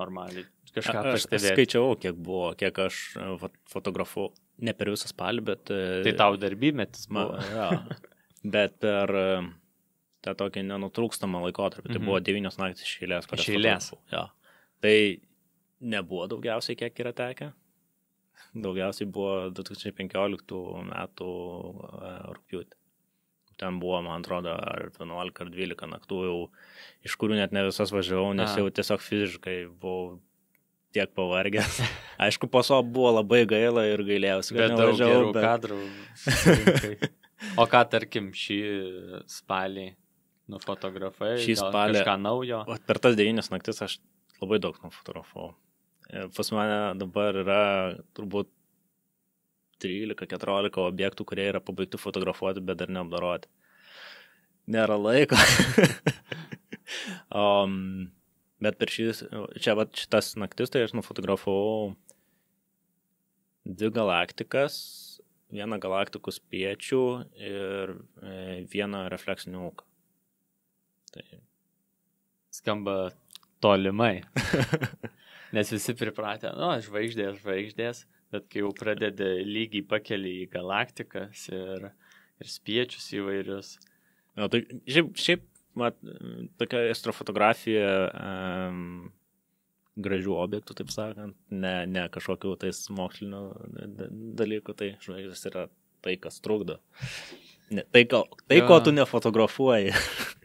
normaliai kažką pastebėti. Aš skaičiavau, kiek aš fotografavau, ne per visą spalį, bet... Tai tau darbymetis buvo. Ja, bet per tą tokį nenutrūkstamą laikotarpį, tai buvo 9 naktis iš eilės. Iš eilės. Ja. Tai nebuvo daugiausiai, kiek yra tekę. Daugiausiai buvo 2015 metų rugpjūtį. Ten buvo, man atrodo, ar 11 ar 12 naktų jau, iš kurių net ne visas važiavau, nes jau tiesiog fiziškai buvau tiek pavargęs. Aišku, po so buvo labai gaila ir gailėjausi, kad nevažiavau. Bet daug gerų kadrų. O ką, tarkim, šį spalį nufotografai? Šį spalį kažką naujo? Per tas 9 naktis aš labai daug nufotografavau. Pas mane dabar yra turbūt 13-14 objektų, kurie yra pabaigti fotografuoti, bet dar neapdoroti. Nėra laiko. Bet per šitas naktis, tai aš nufotografavau 2 galaktikas, 1 galaktikų spiečių ir 1 refleksinį ūką. Tai... Skamba tolimai. Nes visi pripratę, žvaigždės. Bet kai jau pradedi lygiai pakeli į galaktikas ir spiečius įvairius. Ja, tai šiaip tokia astrofotografija gražių objektų, taip sakant, ne kažkokių tais mokslinių dalykų, tai žvaigždės yra tai, kas trukdo. Ko tu nefotografuoji.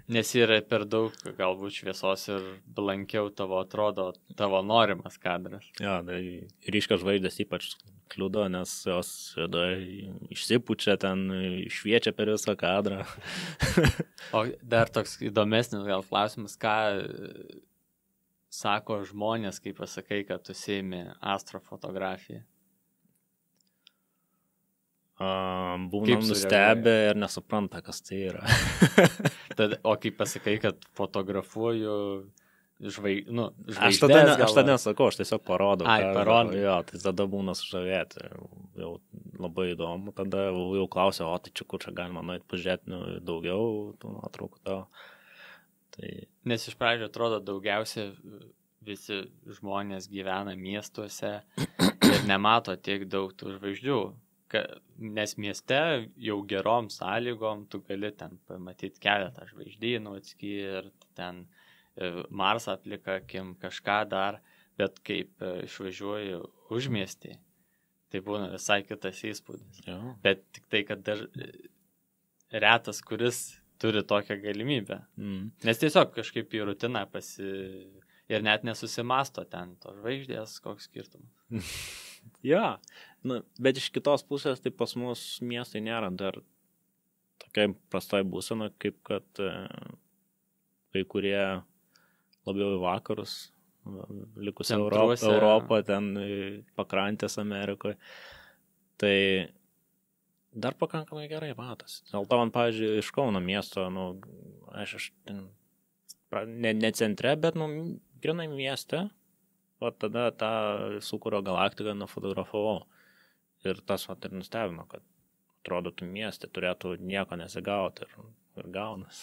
Nes yra per daug galbūt šviesos ir blankiau atrodo tavo norimas kadras. Ja, tai ryškios žvaigždės ypač kliudo, nes jos išsipučia ten, šviečia per visą kadrą. O dar toks įdomesnis gal klausimas, ką sako žmonės, kai pasakai, kad tu užsiimi astrofotografiją? Būnam nustebę ir nesupranta, kas tai yra. O kai pasakai, kad fotografuoju žvaigždės... Aš tada nesakau, aš tiesiog parodau. Parodau. Jo, tai tada būna sužavėti. Jau labai įdomu. Tada jau klausia, o tai čia kur čia galima nuėti pažiūrėti daugiau tų nuotraukų tavo. Tai... Nes iš pradžio atrodo daugiausia visi žmonės gyvena miestuose ir nemato tiek daug tų žvaigždžių. Nes mieste jau gerom sąlygom tu gali ten pamatyti keletą žvaigždynų atskirti, ten Marsą plika akim, kažką dar, bet kaip išvažiuoju užmiestį, tai būna visai kitas įspūdis. Jo. Bet tik tai, kad dar retas, kuris turi tokią galimybę. Nes tiesiog kažkaip į rutiną ir net nesusimasto ten to žvaigždės, koks skirtumas. Ja, bet iš kitos pusės, tai pas mus miestai nėra dar tokia prastai būsena, kaip kad kai kurie labiau į vakarus, likusi Europą, ten pakrantės Amerikoje. Tai dar pakankamai gerai matas. Dėl to man, pavyzdžiui, iš Kauno miesto, aš ne centre, bet, grinai mieste, o tada tą Sūkurio galaktiką nufotografavau. Ir tas ir nustebino, kad atrodo, tu mieste turėtų nieko nesigauti ir gaunas.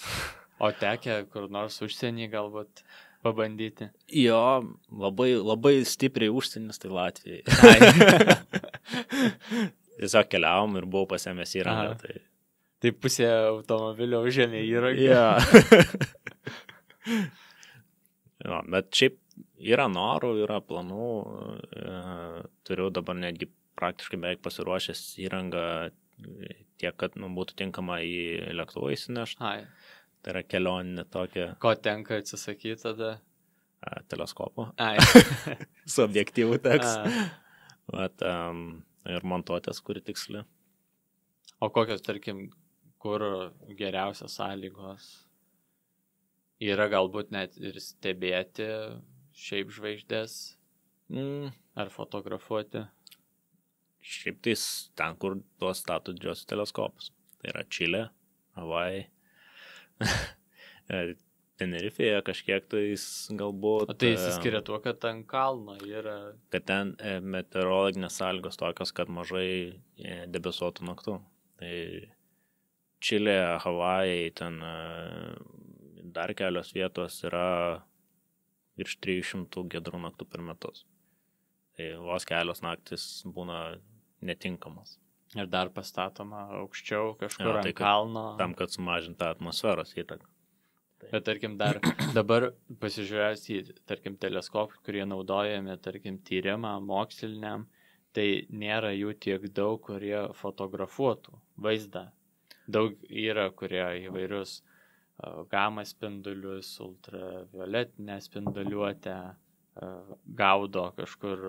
O tekę kur nors užsienį galbūt pabandyti? Jo, labai stipriai užsienis, tai Latvijai. Tiesiog keliavom ir buvau pasiėmęs įrangą. Tai pusė automobilio užėmė įrangą. Ja. Jo, bet šiaip yra norų, yra planų. Turiu dabar netgi praktiškai beveik pasiruošęs įrangą tiek, kad būtų tinkama į lėktuvą įsinešti. Tai yra kelioninė tokia. Ko tenka atsisakyti tada? Teleskopo. Su objektyvu teks. Ir montuotės, kuri tiksli. O kokios, tarkim, kur geriausios sąlygos? Yra galbūt net ir stebėti šiaip žvaigždės ar fotografuoti? Šiaip tais ten, kur tuos stato didžiosius teleskopus. Tai yra Čilė, Havajai. Tenerifėje kažkiek tais galbūt. O tai įsiskiria tuo, kad ten kalno yra. Kad ten meteorologinės sąlygos tokios, kad mažai debesuotų naktų. Tai Čilė, Havajai, ten dar kelios vietos yra virš 300 giedrų naktų per metus. Tai vos kelios naktis būna netinkamas. Ir dar pastatoma aukščiau kažkur ant kalno. Tam, kad sumažinta atmosferos įtaką. Bet tarkim dabar pasižiūrėjus į, tarkim, teleskopus, kurie naudojami, tarkim, tyrimą moksliniam, tai nėra jų tiek daug, kurie fotografuotų vaizdą. Daug yra, kurie įvairius gamma spindulius, ultravioletinę spinduliuotę gaudo kažkur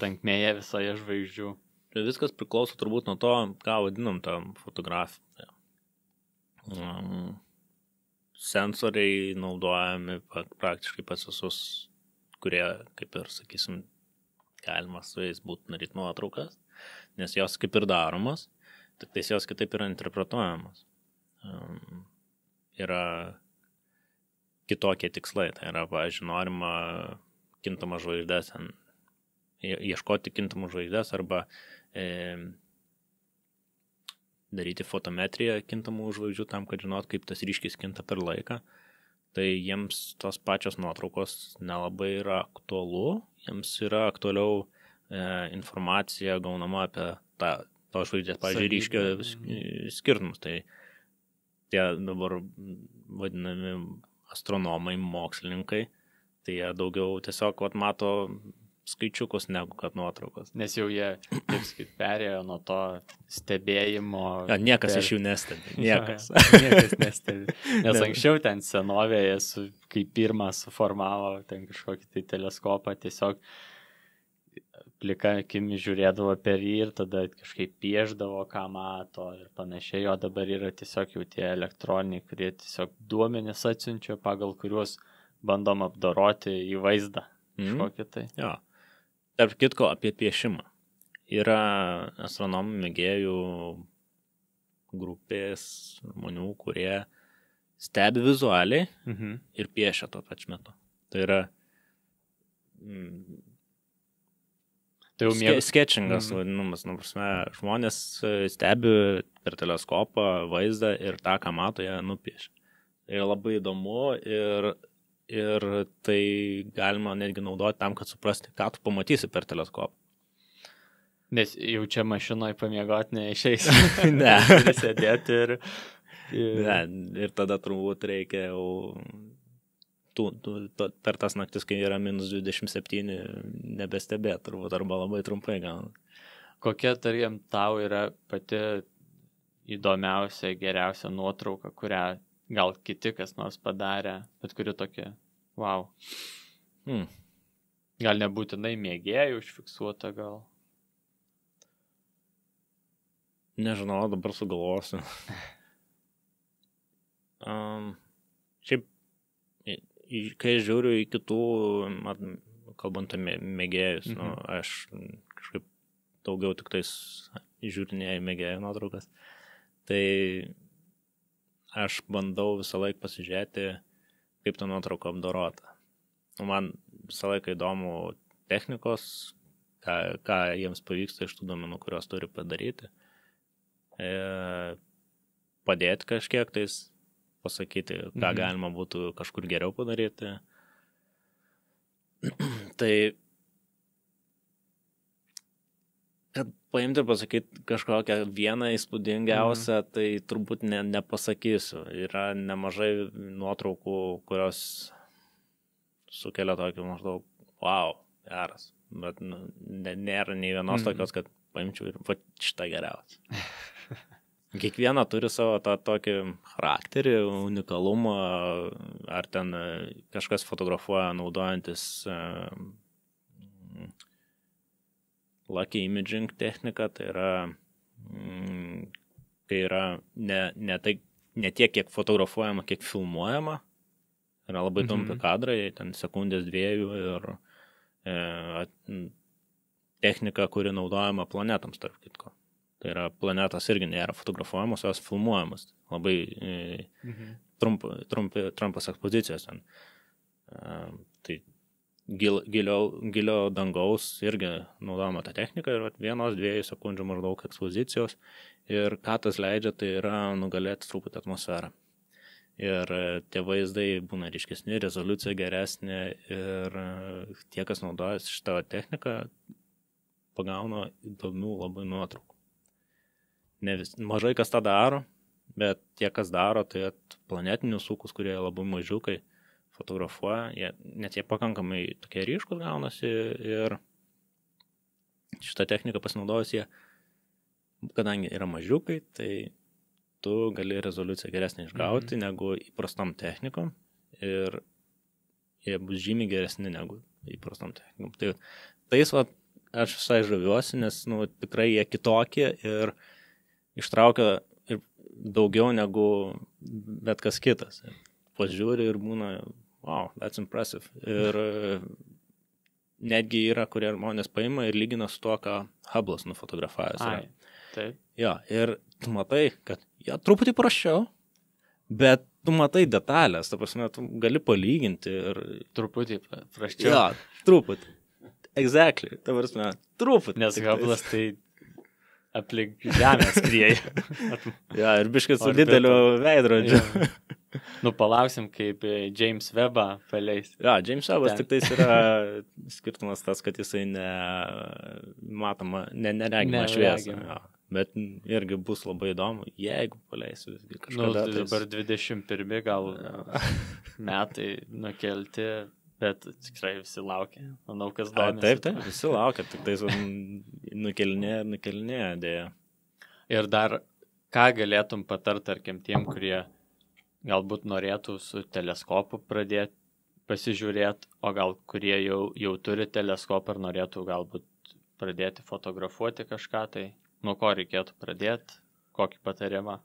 tankmėje visoje žvaigždžių. Viskas priklauso turbūt nuo to, ką vadinam tą fotografiją. Sensoriai naudojami praktiškai pas visus, kurie, kaip ir sakysim, galima su jais būtų daryti nuotraukas, nes jos kaip ir daromos, tik tais jos kitaip yra interpretuojamos. Yra kitokie tikslai, tai yra, pavyzdžiui, norima kintamą žvaigždės, ieškoti kintamų žvaigždės arba daryti fotometriją kintamų žvaigždžių tam, kad žinot, kaip tas ryškis kinta per laiką. Tai jiems tos pačios nuotraukos nelabai yra aktualu, jiems yra aktualiau informacija gaunama apie to žvaigždės, pavyzdžiui, ryškio skirtumus. Tai tie dabar vadinami astronomai, mokslininkai, tai jie daugiau tiesiog mato skaičiukus negu kad nuotraukos. Nes jau jie, kaip sakyt, perėjo nuo to stebėjimo. Niekas iš jų nestebi. Niekas nestebi. Nes anksčiau ten senovėje, kai pirmą suformavo ten kažkokį tai teleskopą, tiesiog plika akimi žiūrėdavo per jį ir tada kažkaip pieždavo, ką mato ir panašiai. O dabar yra tiesiog jau tie elektroniniai, kurie tiesiog duomenis atsiunčia, pagal kuriuos bandom apdoroti į vaizdą. Kažkokį tai. Jo. Tarp kitko apie piešimą. Yra astronomų mėgėjų grupės žmonių, kurie stebi vizualiai ir piešia tuo pačiu metu. Tai yra sketchingas vadinamas. Žmonės stebi per teleskopą vaizdą ir tą, ką mato, jie nupiešia. Tai labai įdomu ir tai galima netgi naudoti tam, kad suprasti, ką tu pamatysi per teleskopą. Nes jau čia mašinoje pamiegoti neišeis. Ne. Sėdėti ir... Ne, ir tada turbūt reikia jau per tas naktis, kai yra minus 27, nebestebėt turbūt, arba labai trumpai gauna. Kokia, tarkim, tau yra pati įdomiausia, geriausia nuotrauka, kurią gal kiti kas nors padarė, bet kuri tokia, wow. Gal nebūtinai mėgėjų užfiksuota, gal? Nežinau, dabar sugalvosiu. Šiaip, kai žiūriu į kitų, kalbant apie mėgėjus, aš kažkaip daugiau tik tais žiūrinėjau mėgėjų nuotraukas, tai aš bandau visą laiką pasižiūrėti, kaip ta nuotrauka apdorota. Man visą laiką įdomu technikos, ką jiems pavyksta iš tų duomenų, kurios turi padaryti. Padėti kažkiek tais, pasakyti, ką galima būtų kažkur geriau padaryti. Tai, kad paimti ir pasakyti kažkokią vieną įspūdingiausią, tai turbūt nepasakysiu. Yra nemažai nuotraukų, kurios sukelia tokį maždaug, wow, geras. Bet nėra nei vienos tokios, kad paimčiau ir va šitą geriausią. Kiekviena turi savo tą tokį charakterį, unikalumą, ar ten kažkas fotografuoja naudojantis lucky imaging techniką, tai yra ne tiek, kiek fotografuojama, kiek filmuojama. Yra labai trumpi kadrai, ten sekundės 2 ir technika, kuri naudojama planetams, tarp kitko. Tai yra planetos irgi nėra fotografuojamos, jos filmuojamos. Labai trumpas ekspozicijos ten. Tai gilio dangaus irgi naudojama ta technika ir 1-2 sekundžių maždaug ekspozicijos. Ir ką tas leidžia, tai yra nugalėti truputį atmosferą. Ir tie vaizdai būna ryškesni, rezoliucija geresnė ir tie, kas naudojasi šitą techniką, pagauna įdomių labai nuotraukų. Mažai kas tą daro, bet tie, kas daro, tai planetinius ūkus, kurie labai mažiukai fotografuoja, net jie pakankamai tokie ryškus gaunasi ir šitą techniką pasinaudojus jie, kadangi yra mažiukai, tai tu gali rezoliuciją geresnį išgauti negu įprastom technikom ir jie bus žymiai geresni negu įprastom technikom. Tai tais aš visai žaviuosi, nes tikrai jie kitokie ir ištraukia ir daugiau negu bet kas kitas. Pažiūri ir būna, wow, that's impressive. Ir netgi yra, kurie žmonės paima ir lygina su tuo, ką Hubble'as nufotografavęs. Taip. Jo, ir tu matai, kad truputį praščiau, bet tu matai detalės, ta prasme, tu gali palyginti ir... Truputį praščiau. Jo, truputį. Exactly, ta prasme, truputį. Nes Hubble'as tai aplink žemę skrieja. Ja, ir biškai su dideliu veidrodžiu. Palauksim, kaip James Webbą paleis. Ja, James Webbas tik tais yra skirtumas tas, kad jisai neregima šviesą. Ja. Bet irgi bus labai įdomu, jeigu paleisiu kažkada. Tai dabar 21 gal metai nukelti, bet tikrai visi laukia. Manau, kas domisi. Taip, visi laukia, tik tais nukelinėja dėja. Ir dar, ką galėtum patart, tarkim, tiem, kurie galbūt norėtų su teleskopu pradėti pasižiūrėti, o gal kurie jau turi teleskopą ir norėtų galbūt pradėti fotografuoti kažką, tai nuo ko reikėtų pradėti, kokį patarimą?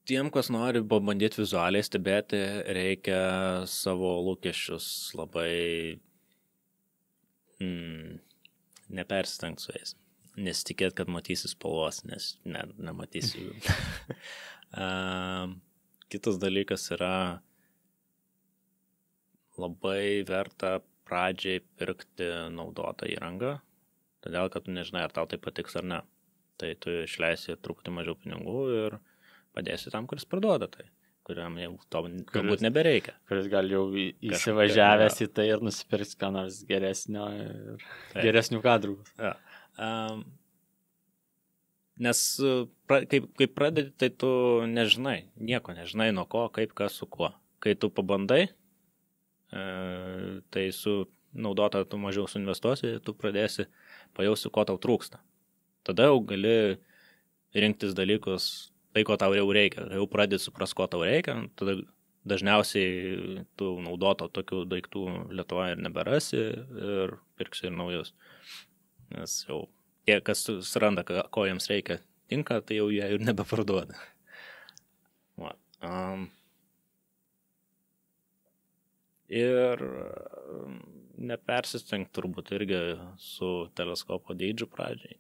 Tiem, kas nori pabandyti vizualiai stebėti, reikia savo lūkesčius labai nepersistengti su jais. Nesitikėt, kad matysi spalvos, nes nematysi jų. Kitas dalykas yra labai verta pradžiai pirkti naudotą įrangą, todėl, kad tu nežinai, ar tau tai patiks ar ne. Tai tu išleisi truputį mažiau pinigų ir padėsi tam, kuris parduoda tai, kuriam jau to galbūt nebereikia. Kuris gal jau įsivažiavęs į tai ir nusipirks ką nors geresnio ir geresnių kadrų. Ja. Nes kai pradedi, tai tu nežinai, nieko nežinai nuo ko, kaip, kas, su kuo. Kai tu pabandai, tai su naudota tu mažiau suinvestuosi, tu pradėsi pajausti, ko tau trūksta. Tada jau gali rinktis dalykus, tai, ko tau jau reikia. Jau pradėti supras, ko tau reikia, tada dažniausiai tu naudoto tokių daiktų Lietuvoje ir neberasi ir pirksi ir naujus. Nes jau tie, kas suranda, ko jiems reikia, tinka, tai jau jie ir nebeparduoda. Ir nepersistengti turbūt irgi su teleskopo dydžiu pradžiai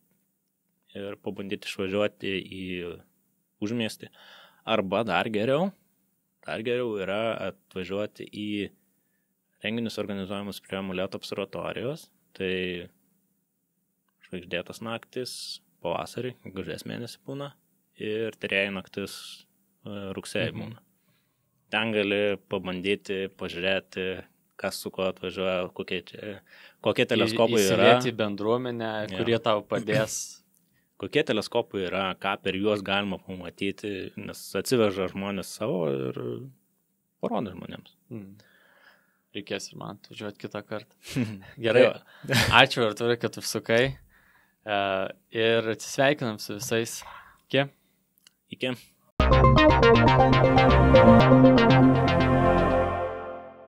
ir pabandyti išvažiuoti į užmiestį. Arba dar geriau yra atvažiuoti į renginius organizuojamus prie Molėtų observatorijos. Tai žvaigždėtas naktis pavasarį, gegužės mėnesį būna, ir tyrėjų naktis rugsėjį būna. Ten gali pabandyti, pažiūrėti, kas su kuo atvažiuoja, kokie teleskopai yra. Įsilieti į bendruomenę, kurie tau padės. Kokie teleskopai yra, ką per juos galima pamatyti, nes atsiveža žmonės savo ir parodo žmonėms. Reikės ir man atvažiuoti kitą kartą. Gerai, ačiū Artūrai, kad užsukai. Ir atsisveikinam su visais. Iki. Iki.